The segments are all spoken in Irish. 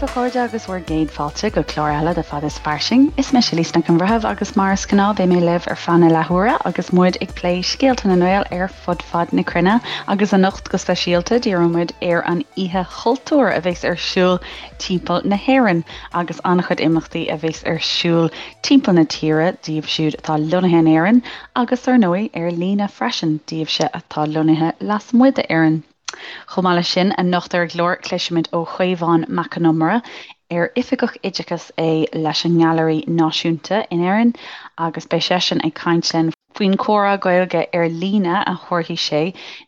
daoibh a chairde agus bhur gcéad fáilte go clár eile de Fad is Fairsing. Is mise Lisa Nic an Bhreithimh agus mar is gnáth beidh mé libh ar feadh na leathuaire agus muid ag plé scéalta na nGael ar fud fad na cruinne agus anocht go speisialta díreoidh muid ar an Oíche Chultúir a bheas ar siúl timpeall na hÉireann agus an-chuid imeachtaí a bheas ar siúl timpeall na tíre daoibh siúd atá lonnaithe in Éirinn agus ar ndóigh ar líne freisin daoibhse atá lonnaithe lasmuigh d'Éirinn. Chomh maith leis sin, anocht ar an gclár cloisfimid ó Chaomhán Mac Con Iomaire, ar Oifigeach Oideachais é leis an nGailearaí Náisiúnta in Éirinn agus beidh seisean ag caint linn faoin chomhrá Gaeilge ar líne a thabharfaidh sé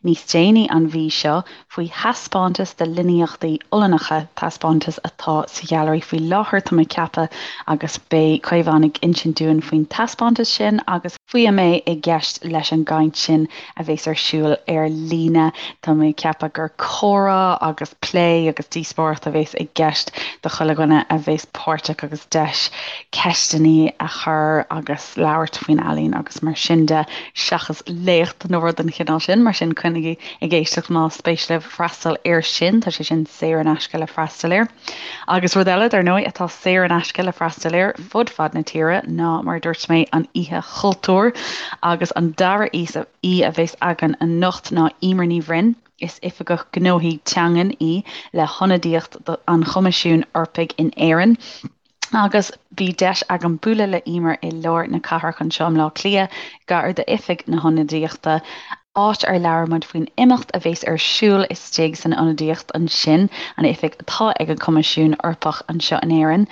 níos déanaí an mhí seo faoi thaispeántas de líníochtaí Ollannacha, taispeántas atá sa ghailearaí faoi láthair, tá mé ag ceapadh, agus beidh Caomhán ag insint dúinn faoin taispeántas sin agus faoi a mbeidh i gceist leis an gcaint sin a bheas ar siúl ar líne. Tá mé ag ceapadh gur comhrá agus plé agus díospóireacht a bheas i gceist do chuile dhuine a bheas páirteach agus deis ceisteanna a chur agus labhairt faoin ealaín agus mar sin de, seachas léacht nó rud den chineál sin. Mar sin coinnigí ag éisteacht más spéis libh freastal air sin, tá sé sin saor in aisce le freastal air. Agus rud eile, dar ndóigh, atá saor in aisce le freastal air fud fad na tíre ná, mar a dúirt mé, an Oíche Chultúir. Agus an dara aoi a bheas againn anocht ná Emer Ní Bhroin. Is Oifigeach Gnóthaí Teangan í le hIonadaíocht an Choimisiúin Eorpaigh in Éirinn. Agus bhí deis agam bualadh le Emer i lár na cathrach anseo i mBleá Cliath, gar d'oifig na hionadaíochta, áit ar labhair muid faoin imeacht a bheas ar siúl istigh san ionadaíocht ansin, an oifig atá ag an Choimisiún Eorpach anseo in Éirinn,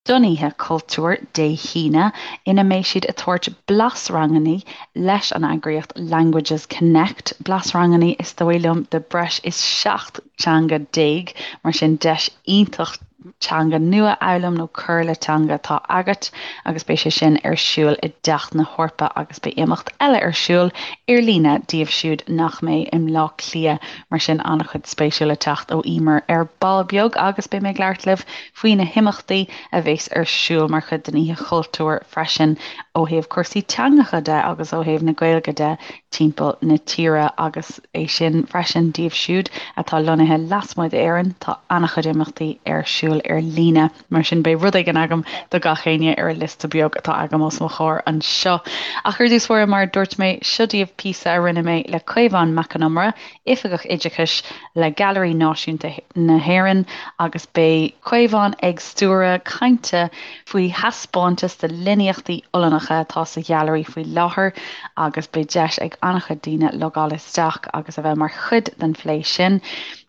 don Oíche Chultúir Dé hAoine, ina mbeidh siad ag tabhairt blasranganna leis an eagraíocht Languages Connect, blasranganna is dóigh liom de breis is 17 teanga, mar sin deis iontach teanga nua a fhoghlaim nó cur le teanga atá agat agus beidh sé sin ar siúl i dTeach na hEorpa agus beidh imeacht eile ar siúl ar líne díobh siúd nach mbeidh i mBleá Cliath mar sin an-chuid spéisiúil le teacht ó Emer ar ball beag agus beidh mé ag labhairt libh faoi na himeachtaí a bheas ar siúl mar chuid den Oíche Chultúir freisin ó thaobh cúrsaí teangacha de agus ó thaobh na Gaeilge de timpeall na tíre agus é sin freisin díobh siúd atá lonnaithe lasmuigh d'Éirinn, tá an-chuid imeachtaí ar siúl ar líne, mar sin beidh rud éigin agam do gach éinne ar an liosta beag atá agam os mo chomhair anseo. Ach ar dtús báire, mar a dúirt mé, seo daoibh píosa a rinne mé le Caomhán Mac Con Iomaire, Oifigeach Oideachais le Gailearaí Náisiúnta na hÉireann agus beidh Caomhán ag stiúradh cainte faoi thaispeántas de líníochtaí Ollannacha atá sa ghailearaí faoi láthair agus beidh deis ag an-chuid daoine logáil isteach agus a bheith mar chuid den phlé sin.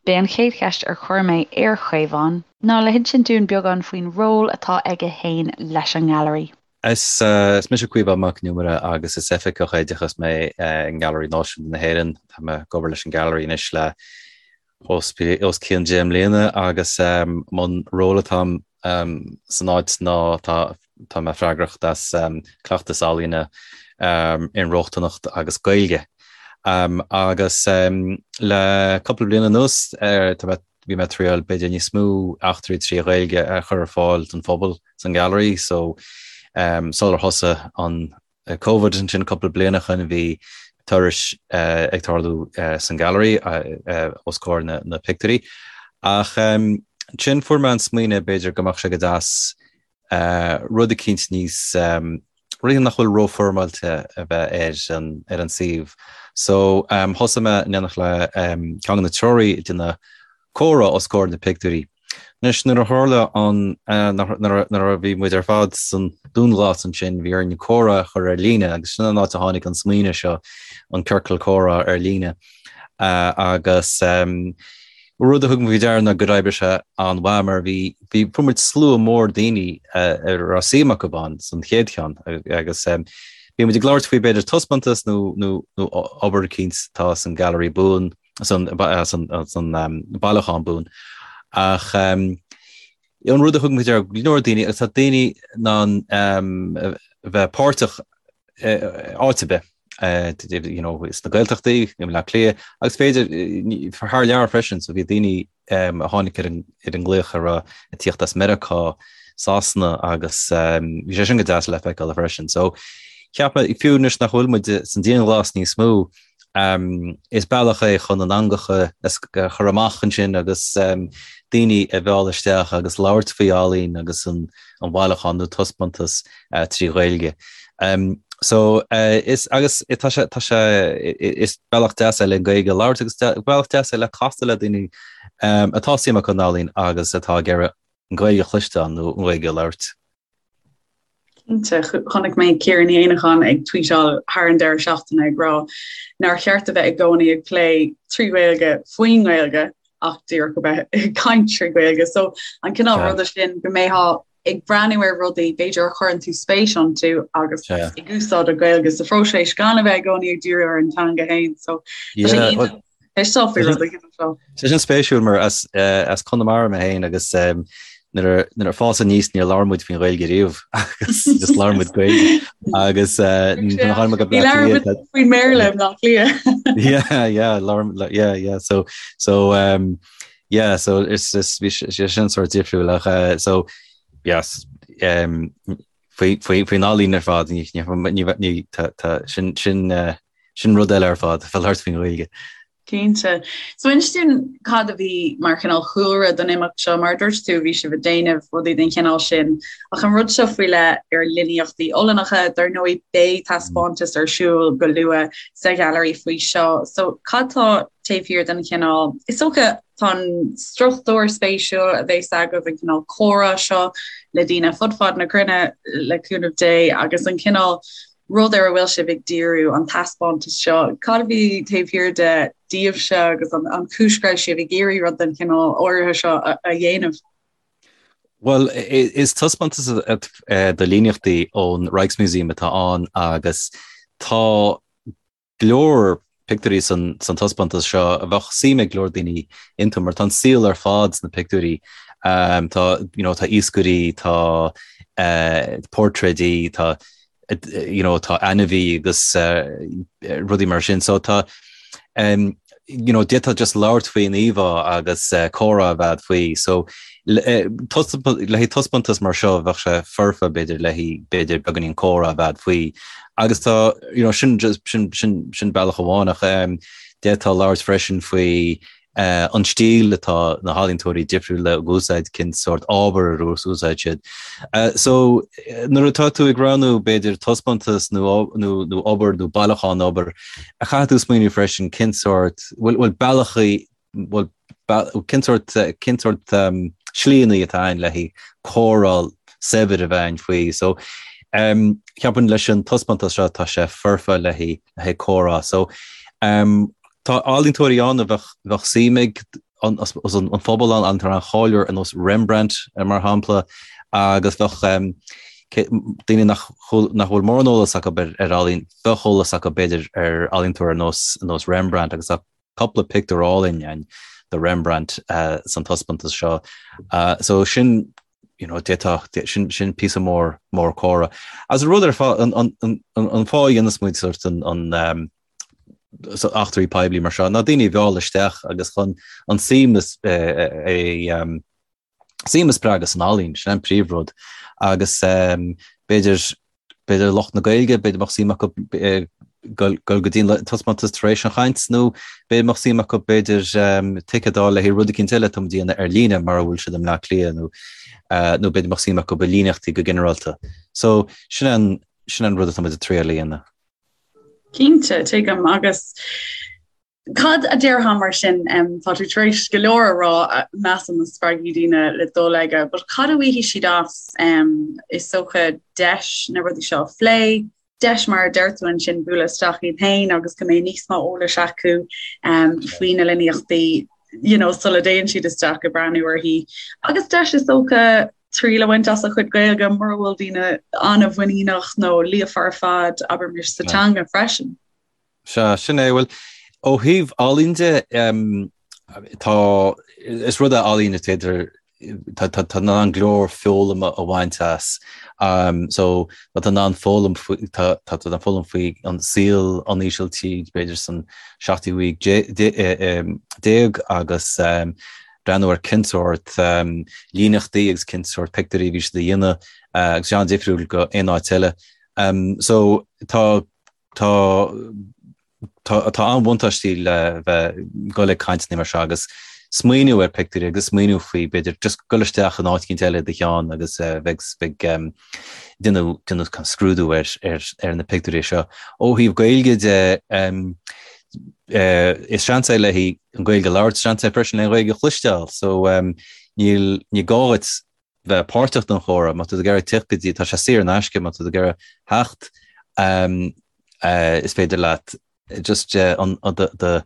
B'é an chéad cheist ar chuir mé ar Chaomhán ná le hinsint dúinn beagán faoin ról atá aige fhéin leis an nGailearaí. Is mise Caomhán Mac Con Iomaire agus is Oifigeach Oideachais mé i nGailearaí Náisiúnta na hÉireann. Tá mé ag obair leis an Gailearaí anois le os cionn 10 mbliana agus an ról atá agam san áit ná tá mé freagrach as cleachtas ealaíne, inrochtaineacht agus Gaeilge. Agus le cúpla bliain anuas tá mé bhí mé ag triail b'fhéidir níos mó eachtraí trí Ghaeilge a chur ar fáil don phobal san Gailearaí so sular thosaigh an Covid ansin cúpla bliain ó shin bhí turais ag tarlú san Gailearaí os comhair na pictiúirí ach ansin fuair mé an smaoineamh b'fhéidir go mbeadh sé go deas rud eicínt níos, rud nach bhfuil rófhoirmeáilte a bheith ar an, ar an suíomh. So thosaigh mé in éineacht le ceann de na treoraí ag déanamh comhrá os comhair na pictiúirí. Anois nuair a tharla an, nuair a bhí muid ar fad san dúnghlas ansin bhí orainn comhrá a chur ar líne agus sin an áit a tháinig an smaoineamh seo, an ciorcal comhrá ar líne. Agus Rud a thug mé faoi deara ná gur oibrigh sé an-mhaith mar bhí, bhí, fuair muid slua mór daoine a raibh suim acu ann san chéad cheann agus bhí muid ag labhairt faoi b'fhéidir taispeántas nó, nó, nó obair eicínt atá san Gallery buan, san, san, san bailiúchán buan. Ach an rud a thug mé faoi deara, go leor daoine, agus tá daoine in ann a bheith páirteach áit ar bith, you know, sna Gaeltachtaí, i mBleá Cliath, agus b'fhéidir thar lear freisin, so bhí daoine a tháinig ar an ar an nglaoch a raibh ag tíocht as Meiriceá, Sasana agus bhí sé sin go deas le feiceáil freisin. So cheap mé fiú anois nach bhfuil muid san dianghlas níos mó, is bealach é chun an eangach a chur amach ansin agus. daoine a mhealladh isteach agus labhairt faoi ealaín agus an bhailiúchán nó taispeántas trí Ghaeilge. So is agus tá sé tá sé is bealach deas é le Gaeilge a labhairt agus bealach deas é le castáil le daoine atá suim acu in ealaín agus atá ag iarraidh an Ghaeilge a chloisteáil nó an Ghaeilge a labhairt. Cinnte, chonaic mé Ciara Ní Éanacháin ag tweetáil thar an deireadh seachtaine ag rá nár cheart a bheith i gcónaí ag plé trí Ghaeilge faoin nGaeilge ach díreach a bheith ag caint trí Ghaeilge. So an cineál ruda sin go mbeifeá ag breathnú ar rudaí b'fhéidir a chuireann tú spéis iontu agus ag úsáid an Ghaeilge sa phróiseas gan a bheith i gcónaí ag díriú ar an teanga féin. So tá sé iontach. Tá sin spéisiúil mar as as Conamara mé féin agus nuair nuair a fás aníos níor labhair muid faoin Ghaeilge riamh agus just labhair muid Gaeilge agus nuair a tháinig mé go Bleá Cliath faoin mBéarla i mBleá Cliath. Yeah, yeah, labhair yeah, yeah, so so um, yeah, so is is bhí sé sin sort difriúil ach uh, so yes um, faoi faoi faoin ealaín ar fad ní ní ní tá tá sin sin uh, Sin rud eile ar fad, bheith ag labhairt faoin Ghaeilge. Cinnte. So inis dúinn cad a bhí mar chineál chúlra don imeacht seo, mar a dúirt tú bhí sibh ag déanamh rudaí den chineál sin, ach an rud seo faoi leith ar líníochtaí Ollannacha, dar ndóigh beidh taispeántas ar siúl go luath sa Ghailearaí faoi seo. So cad tá taobh thiar den chineál, is dócha tá an struchtúr spéisiúil a bheas agaibh, an cineál comhrá seo le daoine fud fad na cruinne le cúnamh Dé agus an cineál rud ar a bhfuil sibh ag díriú, an taispeántas seo. Cad a bhí taobh thiar de daoibhse agus an chúis go raibh sibh ag iarraidh rud den chineál áirithe seo a dhéanamh? Bhuel, is taispeántas de líníochtaí ón Rijksmuseum atá ann agus tá go leor pictiúirí san taispeántas seo a bheadh suim ag go leor daoine iontu mar tá an saol ar fad sna pictiúirí. Tá you know tá iascairí, tá portréidí, tá you know tá ainmhí agus rudaí mar sin. So tá you know d'fhéadfá just labhairt faoin íomhá agus comhrá a bheith faoi. So le haghaidh taispeántas mar seo bheadh sé foirfe b'fhéidir le haghaidh b'fhéidir beagáinín comhrá a bheith faoi. Agus tá you know sin just sin sin sin bealach amháin ach um, d'fhéadfá labhairt freisin faoi uh, an stíl atá na healaíontóirí difriúla ag úsáid cén sórt ábhar a úsáid siad. Uh, so nuair atá tú ag roghnú b'fhéidir taispeántas nó nó nó obair nó bailiúchán obair a chaithfidh tú smaoineamh freisin cén sórt bhfuil bhfuil bealachaí bhuel, cén sórt, cén sórt slíanna atá ann le haghaidh comhrá saibhir a bheith ann faoi. So, ceapaim leis an taispeántas seo tá sé foirfe le haghaidh, le haghaidh comhrá. So, tá ealaíontóirí ann a bheadh, bheadh suim ag an, an phobal ann, ealaíontóir an-cháiliúil ar nós Rembrandt, mar shampla, agus bheadh daoine nach, nach bhfuil mórán eolas acu ar, ar ealaín, bheadh eolas acu b'fhéidir ar ealaíontóir ar nós, ar nós Rembrandt agus tá cúpla pictiúr álainn ann de Rembrandt san taispeántas seo. So sin, you know, d'fhéadfadh, sin, sin píosa mór, mór comhrá. Agus an rud ar fad, an, an, an, an fáth a dhéanas muid sort an, an, um, so eachtraí poiblí mar seo, ná daoine a mhealladh isteach agus chun an suim is, eh, eh, um, suim a spreagadh san ealaín, sin an príomhrud. Agus b'fhéidir, b'fhéidir lucht na Gaeilge, b'fhéidir mbeadh suim acu dul go dtí an taispeántas tar éis an chaint nó b'fhéidir mbeadh suim acu b'fhéidir ticéad a fháil le haghaidh rud eicínt eile atá muid a dhéanamh ar líne mura bhfuil siad i mBleá Cliath nó nó b'fhéidir mbeadh suim acu i líníochtaí go ginearálta. So sin an, sin an rud atá muid ag triail a dhéanamh. Cinnte, tuigim agus Cad a déarfá mar sin, tá tú tar éis go leor a rá, measaim a spreagfaidh daoine le dul aige, but cad a bhfaighidh siad as, is dócha deis na rudaí seo a phlé, deis mar a deir tú ansin bualadh isteach iad féin agus go mbeidh níos mó eolais acu faoi na líníochtaí you know, sula dtéann siad isteach ag breathnú orthu. Agus deis is dócha triail a bhaint as a chuid Gaeilge mura bhfuil daoine an-mhuiníneach nó líofa ar fad, abraimis sa teanga freisin. Sea, sin é. Bhuel, ó thaobh ealaín de, tá, is rud é ealaín is féidir, tá, tá, tá in ann go leor foghlama a bhaint as. So, tá tú in ann foghlaim faoi, tá, tá tú in ann foghlaim faoi an saol an Ísiltír, b'fhéidir san seachtú haois déag agus breathnú ar cén sórt líníochtaí agus cén sórt pictiúirí a bhí siad a dhéanamh agus sé an-difriúil go aon áit eile. So, tá Tá tá an-bhuntáistí le bheith ag dul ag cainteanna mar seo agus. smaoineamh ar pictiúirí agus smaoineamh faoi, b'fhéidir, just dul isteach in áit eicínt eile i do cheann agus bheith ag déanamh déanamh kind of scrúdú ar ar ar na pictiúirí seo. Ó thaobh Gaeilge de, is seans é le haghaidh an Ghaeilge a labhairt, seans é freisin le an Ghaeilge a chloisteáil, so níl ní gá duit bheith páirteach den chomhrá, má tá tú ag iarraidh teacht go dtí, tá sé saor in aisce, má tá tú ag iarraidh theacht, is féidir leat just an do do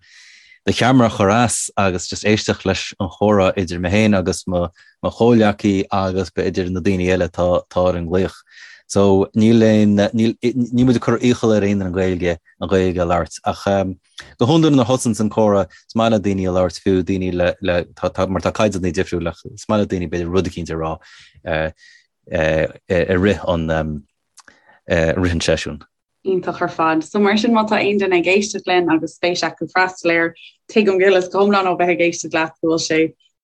cheamara a chur as agus just éisteacht leis an chomhrá idir mé féin agus mo mo chomhghleacaí agus b'fhéidir na daoine eile atá atá ar an nglaoch. So níl aon níl níl muid ag cur iachall ar aon duine an Ghaeilge an Ghaeilge a labhairt ach go hiondúil nuair a thosaíonns an comhrá is maith le daoine a labhairt fiú daoine le le tá tá mar tá caighdeáin difriúil ach is maith le daoine b'fhéidir rud eicínt a rá i rith an i rith an seisiúin. Iontach ar fad. So mar sin má tá aon duine ag éisteacht linn agus spéis acu freastal air, tuigim go huile is go hiomlán ó bheith ag éisteacht leat go bhfuil sé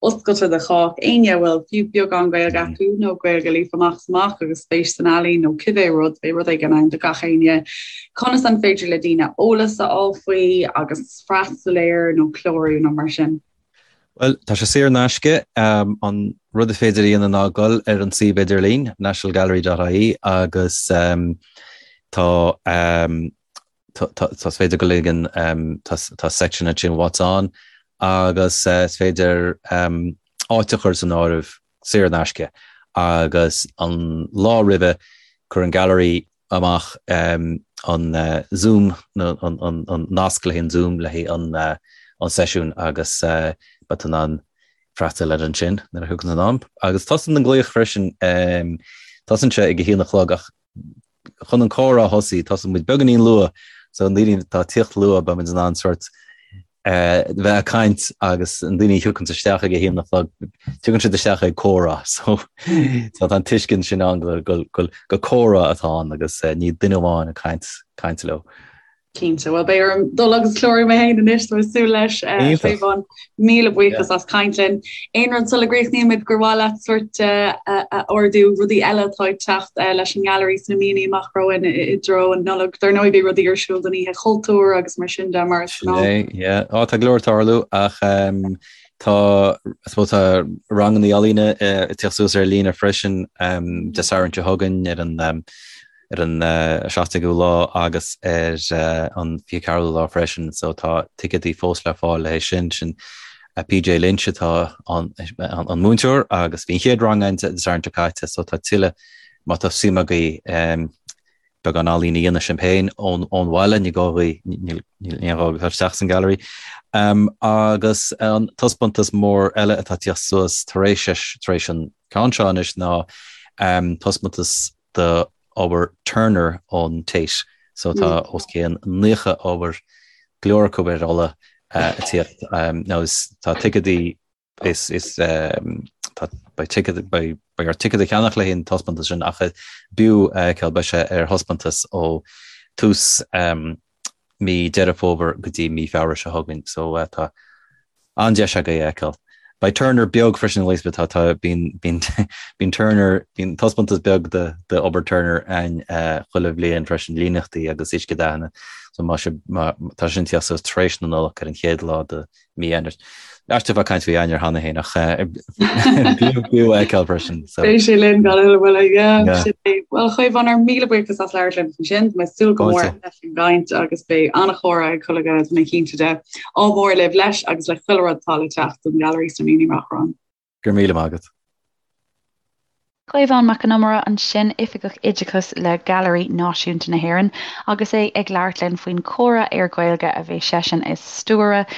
oscailte do chách. Éinne a bhfuil fiú beagán Gaeilge acu nó Gaeilge líofa amach is amach agus spéis san ealaín nó cibé rud, beidh rud éigin ann do gach éinne. Conas an féidir le daoine eolas a fháil faoi agus freastal air nó clárú nó mar sin? Bhuel, tá sé saor in aisce. An rud is féidir a dhéanamh ná dul ar an suíomh idirlín, nationalgallery.ie, agus tá tá is féidir dul ag an tá section ansin What's On agus is féidir áit a chur san áireamh saor in aisce agus an lá roimhe cuireann an Gallery amach an Zoom, an nasc le haghaidh an Zoom le haghaidh an seisiún agus beidh tú in ann freastal air ansin nuair a thiocfaidh an am. Agus tosaíonn an glaoch freisin, tosaíonn sé ag a haon a chlog ach chun an comhrá a thosaí, tosaíonn muid beagáinín luath so na daoine atá ag tíocht luath beidh muid in ann sort bheith ag caint agus na daoine a thiocfaidh isteach ag a haon a chlog, tiocfaidh siad isteach ag comhrá so tá an tuiscint sin ann go go go comhrá atá ann agus ní duine amháin ag caint caint leo. Cinnte, bhuel beidh orm dul agus clárú mé féin anois tá mé ag súil leis Caomhán, míle buíochas as caint linn. Aon rud sula gcríochnaímid gur mhaith leat sórt a ardú, rudaí eile atá ag teacht leis an nGailearaí sna míonna amach romhainn i dtreo an Nollag. Dar ndóigh beidh rudaí ar siúl don Oíche Chultúir agus mar sin de mar is gnáth. Sin é, yeah. Á, tá go leor ag tarlú ach tá, I suppose tá ranganna ealaíne ag teacht suas ar líne freisin Dé Sathairn seo chugainn ar an ar an 17ú lá agus ar an 24ú lá freisin so tá ticéadaí fós le fáil le haghaidh sin. Sin PJ Lynch atá an múinteoir agus bhí an chéad rang ann Dé Sathairn seo caite so tá tuilleadh má tá suim agaibh beagán ealaíne a dhéanamh sibh féin ón bhaile, ní gá dhaoibh, níl aon ghá dul isteach san gallery. Agus an taispeántas mór eile atá ag tíocht suas tar éis tar éis an ceann seo anois ná taispeántas d'obair Turner ón Tate. So tá os cionn 90 obair, go leor acu ar ola ag tíocht. Now is tá ticéadaí is is tá beidh ticéad beidh beidh ort ticéad a cheannach le haghaidh an taispeántas sin ach b'fhiú a fheiceáil beidh sé ar thaispeántas ó tús mí Deireadh Fómhair go dtí mí Feabhra seo chugainn so tá an-deis agaibh é a fheiceáil. Beidh Turner beag freisin Elizabeth tá tá bíonn bíonn bíonn Turner bíonn taispeántas beag de de obair Turner ann chuile bhliain freisin líníochtaí agus uiscedhathanna so má sé má tá sin ag tíocht suas tar éis na Nollag ar an chéad lá de mí Eanáir. Aisteach bheith ag caint faoi Eanáir cheana féin ach b'fhiú a fheiceáil freisin. Beidh sé linn gan a thuilleadh moille, yeah, sin é. Bhuel, a Chaomháin, ár míle buíochas as labhairt linn ansin. Tá mé ag súil go mór leis an gcaint agus beidh an-chomhrá ag chuile dhuine, tá mé cinnte de. Ádh mór libh leis agus le chuile rud atá le teacht don Ghailearaí sna míonna amach romhainn. Go raibh míle maith agat. Caomhán Mac Con Iomaire ansin, Oifigeach Oideachais le Gailearaí Náisiúnta na hÉireann, agus é ag labhairt linn faoin chomhrá ar Ghaeilge a bheidh seisean ag stiúradh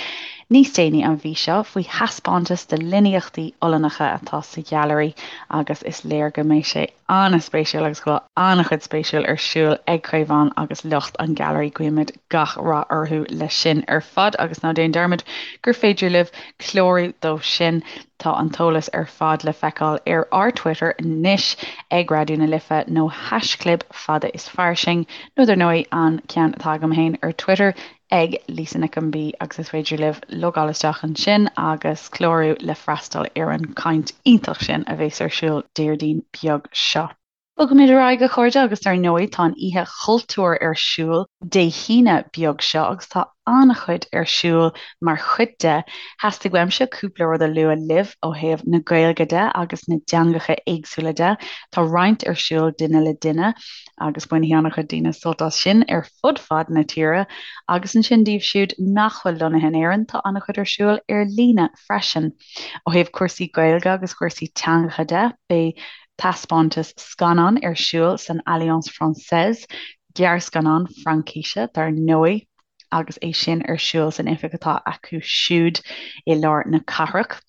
níos déanaí an mhí seo, faoi thaispeántas de líníochtaí Ollannacha atá sa Ghailearaí agus is léir go mbeidh sé an-spéisiúil agus go bhfuil an-chuid spéisiúil ar siúl ag Caomhán agus lucht an Ghailearaí. Guímid gach rath orthu leis sin ar fad agus ná déan dearmad gur féidir libh clárú dó sin. Tá an t-eolas ar fad le feiceáil ar ár Twitter anois ag Raidió na Life nó haischlib fada is fairsing nó dar ndóigh an ceann atá agam féin ar Twitter ag Lisa Nic an B agus is féidir libh logáil isteach ansin agus clárú le freastal ar an gcaint iontach sin a bheas ar siúl Déardaoin beag seo. Bogaimid ar aghaidh, a chairde, agus dar ndóigh tá an Oíche Chultúir ar siúl Dé hAoine beag seo agus tá an-chuid ar siúl mar chuid de. Theastaigh uaimse cúpla rud a lua libh ó thaobh na Gaeilge de agus na dteangacha éagsúla de. Tá roinnt ar siúl duine le duine agus bainfidh an-chuid daoine sult as sin ar fud fad na tíre agus ansin daoibh siúd nach bhfuil lonnaithe in Éirinn tá an-chuid ar siúl ar líne freisin. Ó thaobh cúrsaí Gaeilge agus cúrsaí teangacha de, beidh taispeántas scannán ar siúl san Alliance Française, gearrscannán Fraincise dar ndóigh, agus é sin ar siúl san oifig atá acu siúd i lár na cathrach.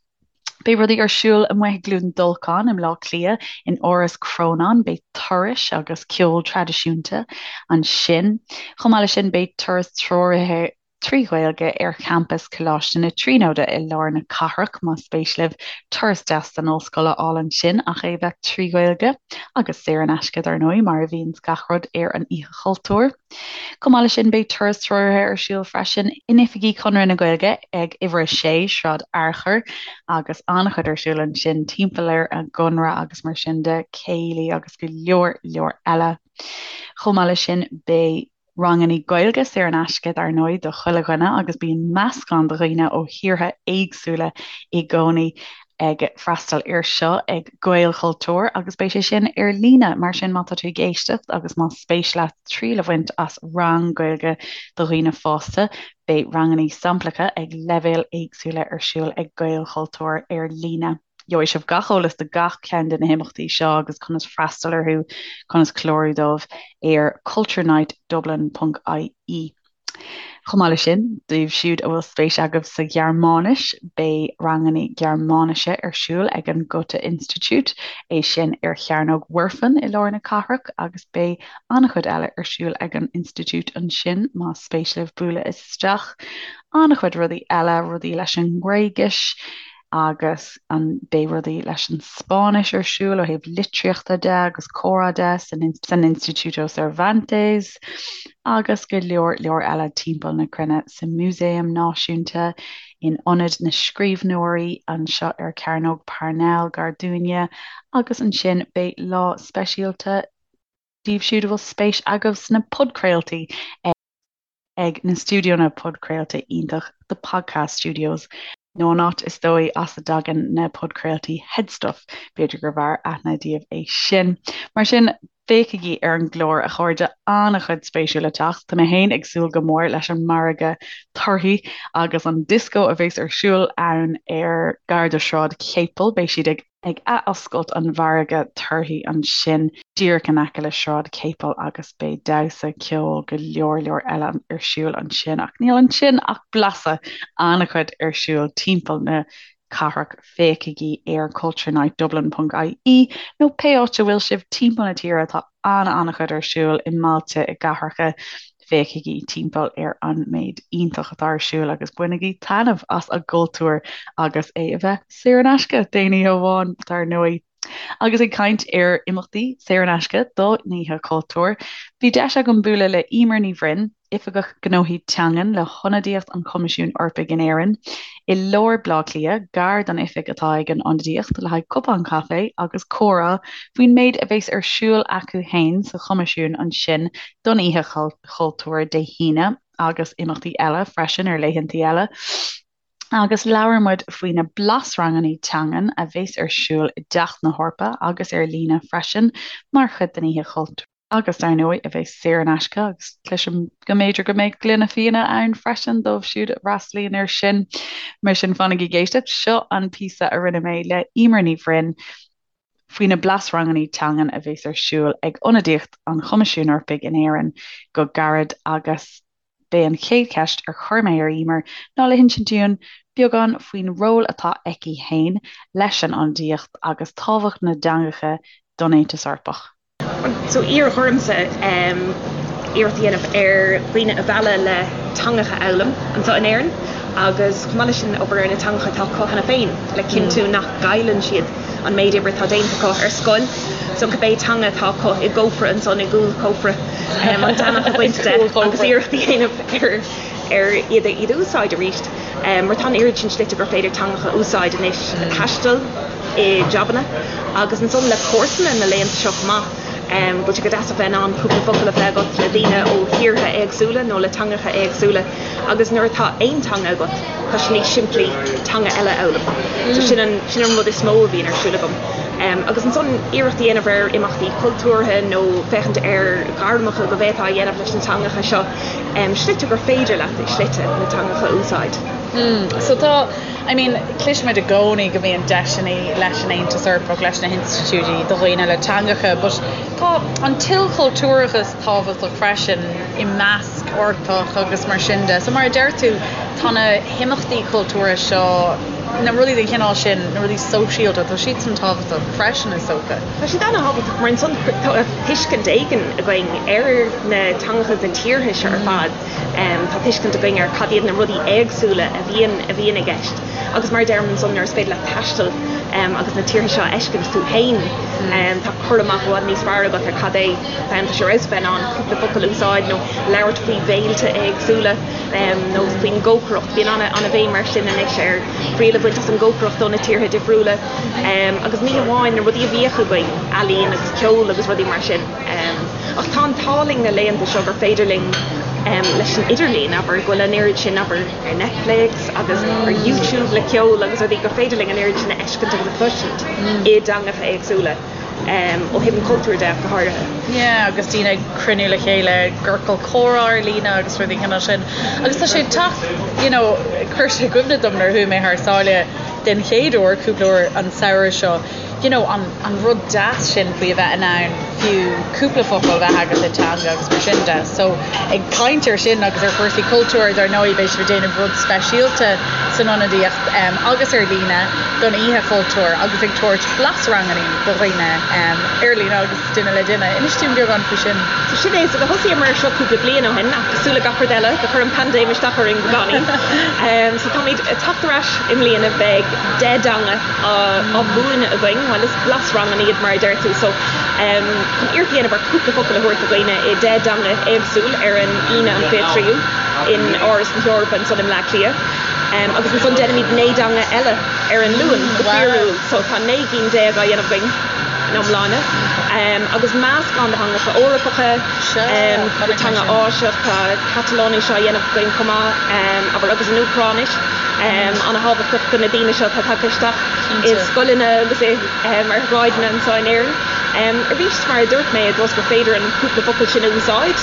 Beidh rudaí ar siúl amuigh i gCluain Dolcáin i mBleá Cliath, in Áras Chrónáin, beidh turais agus ceol traidisiúnta ansin. Chomh maith leis sin beidh turas treoraithe 3 Ghaeilge ar champas Choláiste na Tríonóide i lár na cathrach, más spéis libh turas deas den ollscoil a fháil ansin ach é bheith 3 Ghaeilge, agus saor in aisce dar ndóigh, mar a bhíonns gach rud ar an Oíche Chultúir. Chomh maith leis sin beidh turas treoraithe ar siúl freisin in oifigí Chonradh na Gaeilge ag uimhir 6, Sráid Fhearchair, agus an-chuid ar siúl ansin timpeall ar an gConradh agus mar sin de, céilí agus go leor leor eile. Chomh maith leis sin beidh. Rangannaí Gaeilge saor in aisce dar ndóigh do chuile dhuine agus bíonn meascán de dhaoine ó thíortha éagsúla i gcónaí ag freastal air seo ag Gaelchultúr agus beidh sé sin ar líne mar sin má tá tú ag éisteacht agus más spéis leat triail a bhaint as rang Gaeilge do dhaoine fásta beidh rangannaí samplacha ag leibhéil éagsúla ar siúl ag Gaelchultúr ar líne. Gheobhaidh sibh gach eolas do gach ceann de na himeachtaí seo agus conas freastal orthu, conas clárú dóibh ar culturenightdublin.ie. Chomh maith leis sin, daoibh siúd a bhfuil spéis agaibh sa Ghearmáinis, beidh ranganna Gearmáinise ar siúl ag an Goethe Institut, é sin ar Chearnóg Mhuirfean i lár na cathrach, agus beidh an-chuid eile ar siúl ag an institiúid ansin más spéis libh bualadh isteach. An-chuid rudaí eile, rudaí leis an nGréigis, agus an beidh rudaí leis an Spáinnis ar siúl ó thaobh litríochta de agus comhrá de san san Instituto Cervantes agus go leor leor eile timpeall na cruinne sa Músaem Náisiúnta, in Ionad na Scríbhneoirí anseo ar Chearnóg Parnell gar dúinne agus ansin beidh lá speisialta daoibh siúd a bhfuil spéis agaibh sna podchraoltaí ag na stiúideonna podchraolta iontach The Podcast Studios, nó an áit is dóigh as a dtagann na podchraoltaí HeadStuff, b'fhéidir gurbh fhearr aithne daoibh é sin. Mar sin, féachaigí ar an gclár, a chairde, an-chuid spéisiúil le teacht. Tá mé féin ag súil go mór leis an margadh torthaí agus an dioscó a bheas ar siúl ann ar gar do Shráid Chéipil. Beidh siad ag. ag athoscailt an mhargaidh torthaí ansin díreach in aice le Sráid Chéipil agus beidh damhsa, ceol, go leor leor eile ar siúl ansin ach níl ansin ach blaiseadh, an-chuid ar siúl timpeall na cathrach, féachaigí ar culturenightdublin.ie nó pé áit a bhfuil sibh timpeall na tíre tá an-an-chuid ar siúl i mbailte, i gcathracha. Féachaigí timpeall ar an méid iontach atá ar siúl agus bainigí taitneamh as an gcultúr agus é a bheith saor in aisce d'aon oíche amháin, dar ndóigh. Agus ag caint ar imeachtaí saor in aisce don Oíche Chultúir, bhí deis agam bualadh le Emer Ní Bhroin, Oifigeach Gnóthaí Teangan le hIonadaíocht an Choimisiúin Eorpaigh in Éirinn, i lár Bhaile Átha Cliath, gar don oifig atá ag an Ionadaíocht, le haghaidh cupán caife agus comhrá faoin méid a bheas ar siúl acu féin sa Choimisiún ansin don Oíche Chultúir Dé hAoine agus imeachtaí eile freisin ar laethantaí eile. Agus labhair muid faoi na blasranganna teangan a bheas ar siúl i dTeach na hEorpa agus ar líne freisin mar chuid den Oíche Chultúir. agus dar ndóigh a bheas saor in aisce agus cloisim go mb'fhéidir go mbeidh gloine fíona ann freisin dóibh siúd a fhreastalaíonn air sin. Mar sin fanaigí ag éisteacht, seo an píosa a rinne mé le Emer Ní Bhroin faoi na blasranganna teangan a bheas ar siúl ag Ionadaíocht an Choimisiúin Eorpaigh in Éirinn go gairid agus B'é an chéad cheist ar chuir mé ar Emer ná le hinsint dúinn beagán faoin ról atá aici féin leis an Ionadaíocht agus tábhacht na dteangacha don Aontas Eorpach. So iarradh ormsa iarracht a dhéanamh ar dhaoine a mhealladh le teangacha a fhoghlaim anseo in Éirinn agus chomh maith leis sin obair ar na teangacha atá acu cheana féin le cinntiú nach gcailleann siad an méid oibre atá déanta acu ar scoil. So cibé teanga atá acu i gcófra ansan i gcúl cófra an deannach a bhaint de agus iarracht a dhéanamh ar ar iad a iad a úsáid arís. Mar tá an oiread sin slite gur féidir teangacha a úsáid anois le taisteal, i jabanna agus ansan le comharsana na laethanta seo chomh maith. Go bhfuil sé go deas a bheith in ann cúpla focal a phlé agat le daoine ó thíortha éagsúla nó le teangacha éagsúla agus nuair atá aon teanga agat tá sé níos simplí teanga eile a fhoghlaim. So sin an, sin an rud is mó a bhíonn ar siúl agam. Agus ansan iarracht a dhéanamh ar imeachtaí cultúrtha nó féachaint ar ghairmeacha go bhféadfá a dhéanamh leis na teangacha seo, slite gur féidir leat i slite na teangacha a úsáid. So tá, I mean, cloisimid i gcónaí go mbíonn deiseanna leis an Aontas Eorpach, leis na hinstitiúidí do dhaoine le teangacha, but tá an t-ilchultúrachas tábhachtach freisin i measc Eorpach agus mar sin de. So mar a deir tú, tá na himeachtaí cultúrtha seo, na rudaí den chineál sin, na rudaí sóisialta, tá siadsan tábhachtach freisin is dócha. Tá siad ana-thábhachtach mar ansan tá tuiscint éigin againn ar na teangacha is na tíortha seo ar fad. Tá tuiscint againn ar cad iad na rudaí éagsúla a bhíonn a bhíonn i gceist. Agus mar a deirim ansan nuair is féidir leat taisteal agus na tíortha seo a fheiscint tú féin, tá cur amach i bhfad níos fearr agat ar cad é tá sé ar fheabhas a bheith in ann cúpla focal a úsáid nó labhairt faoi bhéilte éagsúla nó faoin gcócaireacht. Bíonn ana-bhéim mar sin anois ar thriail a bhaint as an gcócaireacht ó na tíortha difriúla agus ní hamháin na rudaí a bhíodh againn, ealaín agus ceol agus rudaí mar sin. Ach tá an t-ádh linn na laethanta seo gur féidir linn leis an idirlíon, abair, go bhfuil an oiread sin, abair, ar Netflix agus ar YouTube le ceol agus rudaí, gur féidir linn an oiread sin a fheiscint agus a chloisint i dteangacha éagsúla, ó thaobh an chultúir de ach go háirithe. Yeah, agus daoine ag cruinniú le chéile i gciorcal comhrá ar líne agus rudaí den chineál sin. Agus tá sé ag teacht, you know, chuir sé i gcuimhne dom nuair a chuaigh mé thar sáile den chéad uair cúpla uair an samhradh seo, you know, an, an rud deas sin faoi a bheith in ann fiú cúpla focal a bheith agat i dteanga agus mar sin de. So, ag caint ar sin agus ar chúrsaí cultúir, dar ndóigh, beidh sibh ag déanamh rud speisialta san ionadaíocht um, agus ar líne don Oíche Chultúir agus ag tabhairt blasranganna do dhaoine um, ar líne agus duine le duine. Inis dúinn beagán faoi sin. So sin é, so do thosaíomar ar seo cúpla bliain ó shin ach cosúil le gach rud eile, do chuir an paindéim isteach orainn beagáinín. Um, so táimid ag teacht ar ais i mbliana, beidh 10 dteanga á mhúineadh againn, bhuel is blasranganna iad mar a deir tú, so chun iarracht a dhéanamh ar cúpla focal a thabhairt do dhaoine i 10 dteanga éagsúil ar an Aoine an 23ú in Áras na hEorpa ansan i mBleá Cliath. Agus ansan déanfaimid 9 dteanga eile ar an Luan go fíorúil, so tá 19 gcinn á dhéanamh againn ina iomláine. Agus meascán de theangacha Eorpacha, cúpla teanga Áiseach, tá Catalóinis á dhéanamh againn chomh maith, abair, agus an Úcráinis. Ana-thábhachtach do na daoine seo atá tagtha isteach i scoileanna agus ar shráideanna anseo in Éirinn. Arís, mar a dúirt mé, i dtreo is gur féidir an cúpla focal sin a úsáid,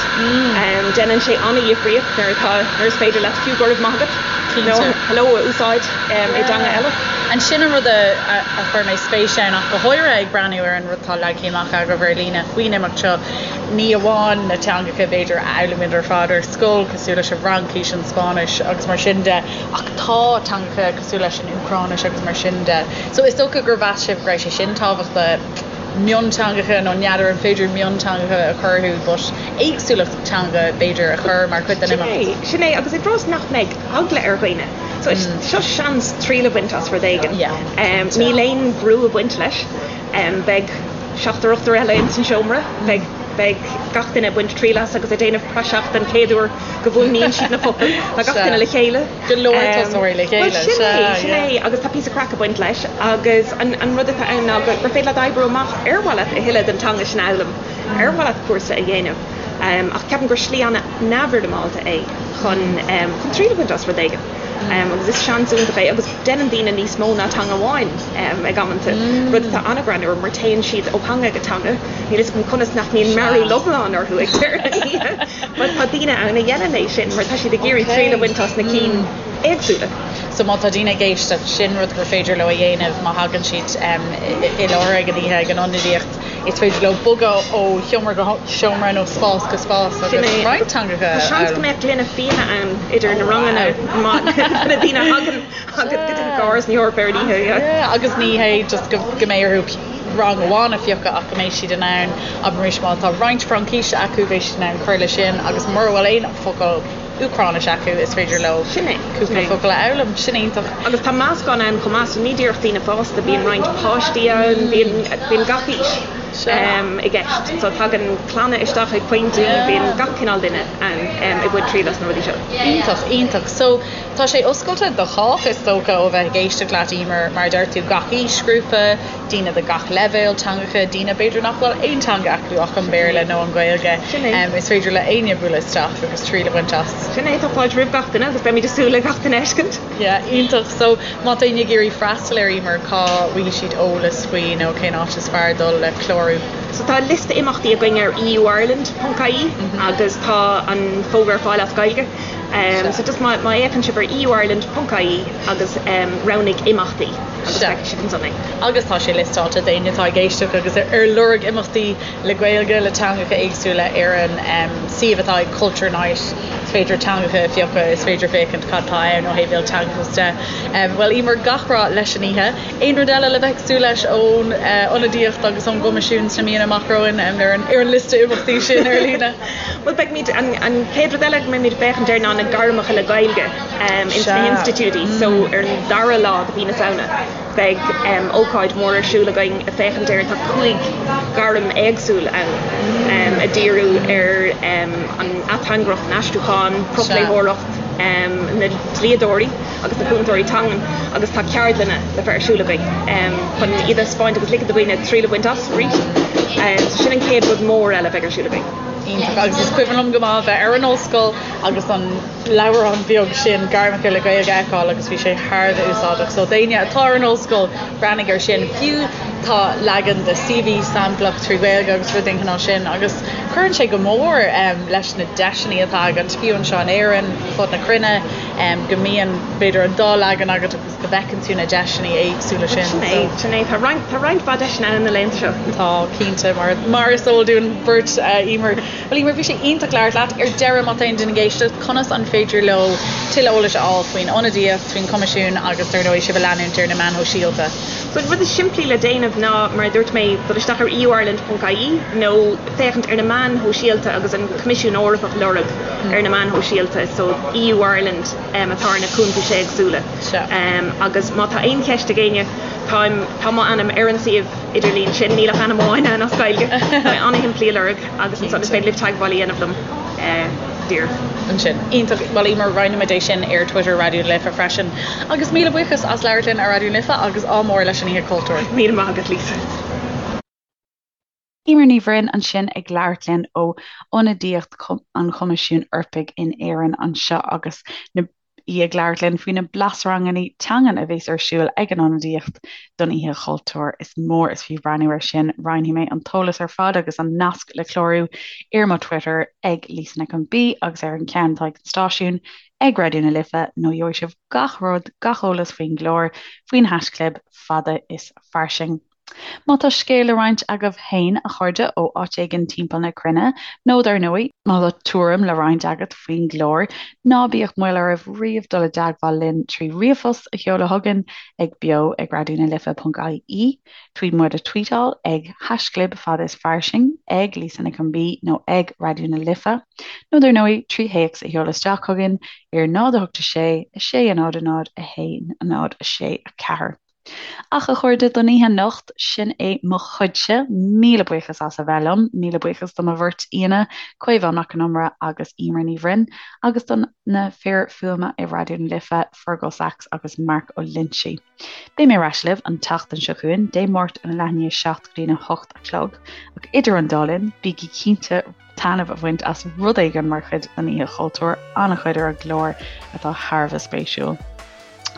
déanann sé ana-dhifríocht nuair atá, nuair is féidir leat fiú go raibh maith agat nó hello a úsáid i dteanga eile. And sin an rud a chuir mé spéis ann ach go háirithe ag breathnú ar an rud atá leagtha amach agaibh ar líne faoin imeacht seo, ní amháin na teangacha b'fhéidir a fhoghlaimíonn ar fad ar scoil, cosúil leis an bhFraincis, an Spáinnis agus mar sin de, ach tá teangacha cosúil leis an Úcráinis agus mar sin de. So is dócha gur mheas sibh go raibh sé sin tábhachtach, mionteangacha nó n'fheadar an féidir mionteangacha a chur orthu but éagsúlacht teanga b'fhéidir a chur mar chuid den imeacht. Sin é, agus i dtreo is nach mbeidh eagla ar dhaoine. So seo seans triail a bhaint as rud éigin. Níl aon bhrú ag baint leis. Beidh seachtar ochtar eile ins an seomra. Beidh beidh gach duine ag baint triail as agus ag déanamh praiseach den chéad uair go bhfuaimníonn siad na focail. Tá gach duine le chéile. Go leor tosóirí le chéile. Bhuel sin é, sin é agus tá píosa craic ag baint leis agus an an rud atá ann ná gur féidir leat oibriú amach ar mhaith leat a thuilleadh den teanga sin a fhoghlaim, ar mhaith leat cúrsa a dhéanamh. Ach ceapaim gur slí an-neamhfhoirmeálta é chun chun triail a bhaint as rud éigin. Agus is seans iontach é agus déanann daoine níos mó ná teanga amháin ag amanta, rud atá an-ghreannmhar mar téann siad ó theanga go teanga, níl fhios agam conas nach mbíonn mearúil iomlán orthu ag deireadh na hoíche but tá daoine ann a dhéanann é sin mar tá siad ag iarraidh triail a bhaint as na cinn éagsúla. So má tá daoine ag éisteacht, sin rud gur féidir leo a dhéanamh má thagann siad i láthair ag an oíche ag an ionadaíocht. Is féidir leo bogadh ó sheomra go seomra nó spás go spás agus roinnt teangacha a fhoghlaim. Tá seans go mbeadh gloine fíona ann idir na ranganna má na daoine a thagann go dtí Áras na hEorpa ar an oíche. Yeah, agus ní hé just go mbeidh orthu rang amháin a phiocadh ach go mbeidh siad in ann, abraimis má tá roinnt Fraincise acu beidh siad in ann cur leis sin agus mura bhfuil aon focal Úcráinis acu, is féidir leo cúpla focal a fhoghlaim. Sin iontach. Agus tá meascán ann chomh maith, so ní díreach daoine fásta, bíonn roinnt páistí ann, bíonn, bíonn gach aois. i gceist. So tagann clanna isteach ag pointí, bíonn gach cineál duine ann ag baint triail as na rudaí seo. Iontach, iontach. So tá sé oscailte do chách is dócha ó bheith ag éisteacht leat Emer, mar a deir tú gach aoisghrúpa, daoine de gach leibhéal teangacha, daoine b'fhéidir nach bhfuil aon teanga acu ach an Béarla nó an Ghaeilge. Sin é. Is féidir le éinne bualadh isteach agus triail a bhaint as. Sin é, tá fáilte roimh gach duine agus beimid ag súil le gach duine a fheiscint. Yeah, iontach. So má tá éinne ag iarraidh freastal air Emer, cá bhfaighidh siad eolas faoi nó cén áit is fearr dul le clárú? So tá liosta imeachtaí againn ar euireland.ie agus tá an fógra ar fáil as Gaeilge. So just má fhéachann sibh ar euireland.ie agus roghnaigh imeachtaí agus feicfidh sibh ansan é. Agus tá sé liostáilte d'éinne atá ag éisteacht agus ar lorg imeachtaí le Gaeilge, le teangacha éagsúla ar an suíomh atá ag Culture Night. Is féidir teangacha a phiocadh, is féidir féachaint cad tá ann ó thaobh ilteangachas de. Bhuel, Emer, gach rath leis an oíche. Aon rud eile le bheith ag súil leis ón ionadaíocht agus ón gCoimisiún sna míonna amach romhainn ar an ar an liosta imeachtaí sin ar líne? Bhuel, beimid, an an chéad rud eile go mbeimid ag féachaint air ná na gairmeacha le Gaeilge ins na hinstitiúidí. So ar an dara lá de mhí na Samhna beidh ócáid mhór ar siúl againn ag féachaint ar, tá 5 ghairm éagsúil ann ag díriú ar an ateangaireacht, an aistriúchán, profléitheoireacht, na dlíodóirí agus na cúntóirí teangan agus tá ceardlanna le bheith ar siúl againn chun iad a thaispeáint agus ligean do dhaoine triail a bhaint as arís. So sin an chéad rud mór eile a bheidh ar siúl againn. Iontach agus is cuimhin liom go maith a bheith ar an ollscoil agus an leabhrán beag sin Gairmeacha le Gaeilge a fheiceáil agus bhí sé thar a bheith úsáideach. So d'éinne atá ar an ollscoil, breathnaigh ar sin. Fiú tá leagan de CV samplach trí Ghaeilge agus rud den chineál sin agus cuireann sé go mór leis na deiseanna atá agat, fiú anseo in Éirinn, fud na cruinne, go mbíonn b'fhéidir an dá leagan agat agus go bhfeiceann tú na deiseanna éagsúla sin. Sin é, sin é. Tá roinnt, tá roinnt mhaith deiseanna ann na laethanta seo. Tá, cinnte, mar, mar is eol dúinn beirt, Emer. Bhuel Emer, bhí sé iontach labhairt leat. Ar deireadh, má tá aon duine ag éisteacht, conas an féidir leo tuilleadh eolais a fháil faoin ionadaíocht, faoin Choimisiún agus dar ndóigh sibh a leanúint ar na meáin shóisialta? So an rud is simplí le déanamh ná, mar a dúirt mé, dul isteach ar euireland.ie nó féachaint ar na meáin shóisialta agus an Coimisiún Eorpach a lorg ar na meáin shóisialta, so EU Ireland atá ar na cuntais éagsúla. Agus má tá aon cheist ag éinne, táim, tá m'ainm ar an suíomh idirlín sin, níl ach ainm amháin ann as Gaeilge, tá sé an-shimplí a lorg agus ansan is féidir libh teagmháil a dhéanamh liom díreach. Ansin. Iontach. Bhuel Emer, roinnfimid é sin ar Twitter Raidió na Life freisin. Agus míle buíochas as labhairt linn ar Raidió na Life agus ádh mór leis an Oíche Chultúir. Míle maith agat Lisa. Emer Ní Bhroin ansin ag labhairt linn ó ionadaíocht an Choimisiúin Eorpaigh in Éirinn anseo agus na í ag labhairt linn faoi na blasranganna teangan a bheas ar siúl ag an ionadaíocht don Oíche Chultúir. Is mór is fiú breathnú air sin. Roinnfidh mé an t-eolas ar fad agus an nasc le clárú ar mo Twitter ag Lisa Nic an B agus ar an ceann atá ag an stáisiún ag Raidió na Life nó gheobhaidh sibh gach rud, gach eolas faoin gclár, faoin haischlib fada is fairsing. Má tá scéal le roinnt agaibh féin, a chairde, ó áit éigin timpeall na cruinne, nó dar ndóigh, má tá tuairim le roinnt agat faoin gclár, ná bíodh moill oraibh riamh dul i dteagmháil linn trí ríomhphost a sheoladh chugainn ag beo ag raidionalife.ie, trí muid a tweetáil ag haischlib fada is fairsing, ag Lisa Nic an B nó ag Raidió na Life, nó dar ndóigh, trí théacs a sheoladh isteach chugainn ar 0 8 6 6 0 0 1 0 6 4. Ach a chairde, don oíche anocht, sin é mo chuidse. Míle buíochas as a bheith liom. Míle buíochas do mo bheirt aíonna, Caomhán Mac Con Iomaire agus Emer Ní Bhroin, agus do na fir fuaime i Raidió na Life, Fergal Sachs agus Mark Ó Loinsigh. Beidh mé ar ais libh an tseachtain seo chugainn, Dé Máirt óna leath i ndiaidh a 7 go dtína 8 a chlog. Ach idir an dá linn, bígí cinnte taitneamh a bhaint as rud éigin mar chuid den Oíche Chultúir, an-chuid ar an gclár atá thar a bheith spéisiúil.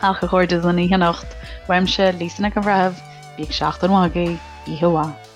Ach a chairde don oíche anocht, uaimse, Lisa Nic an Bhreithimh, bíodh seachtain mhaith agaibh, oíche mhaith.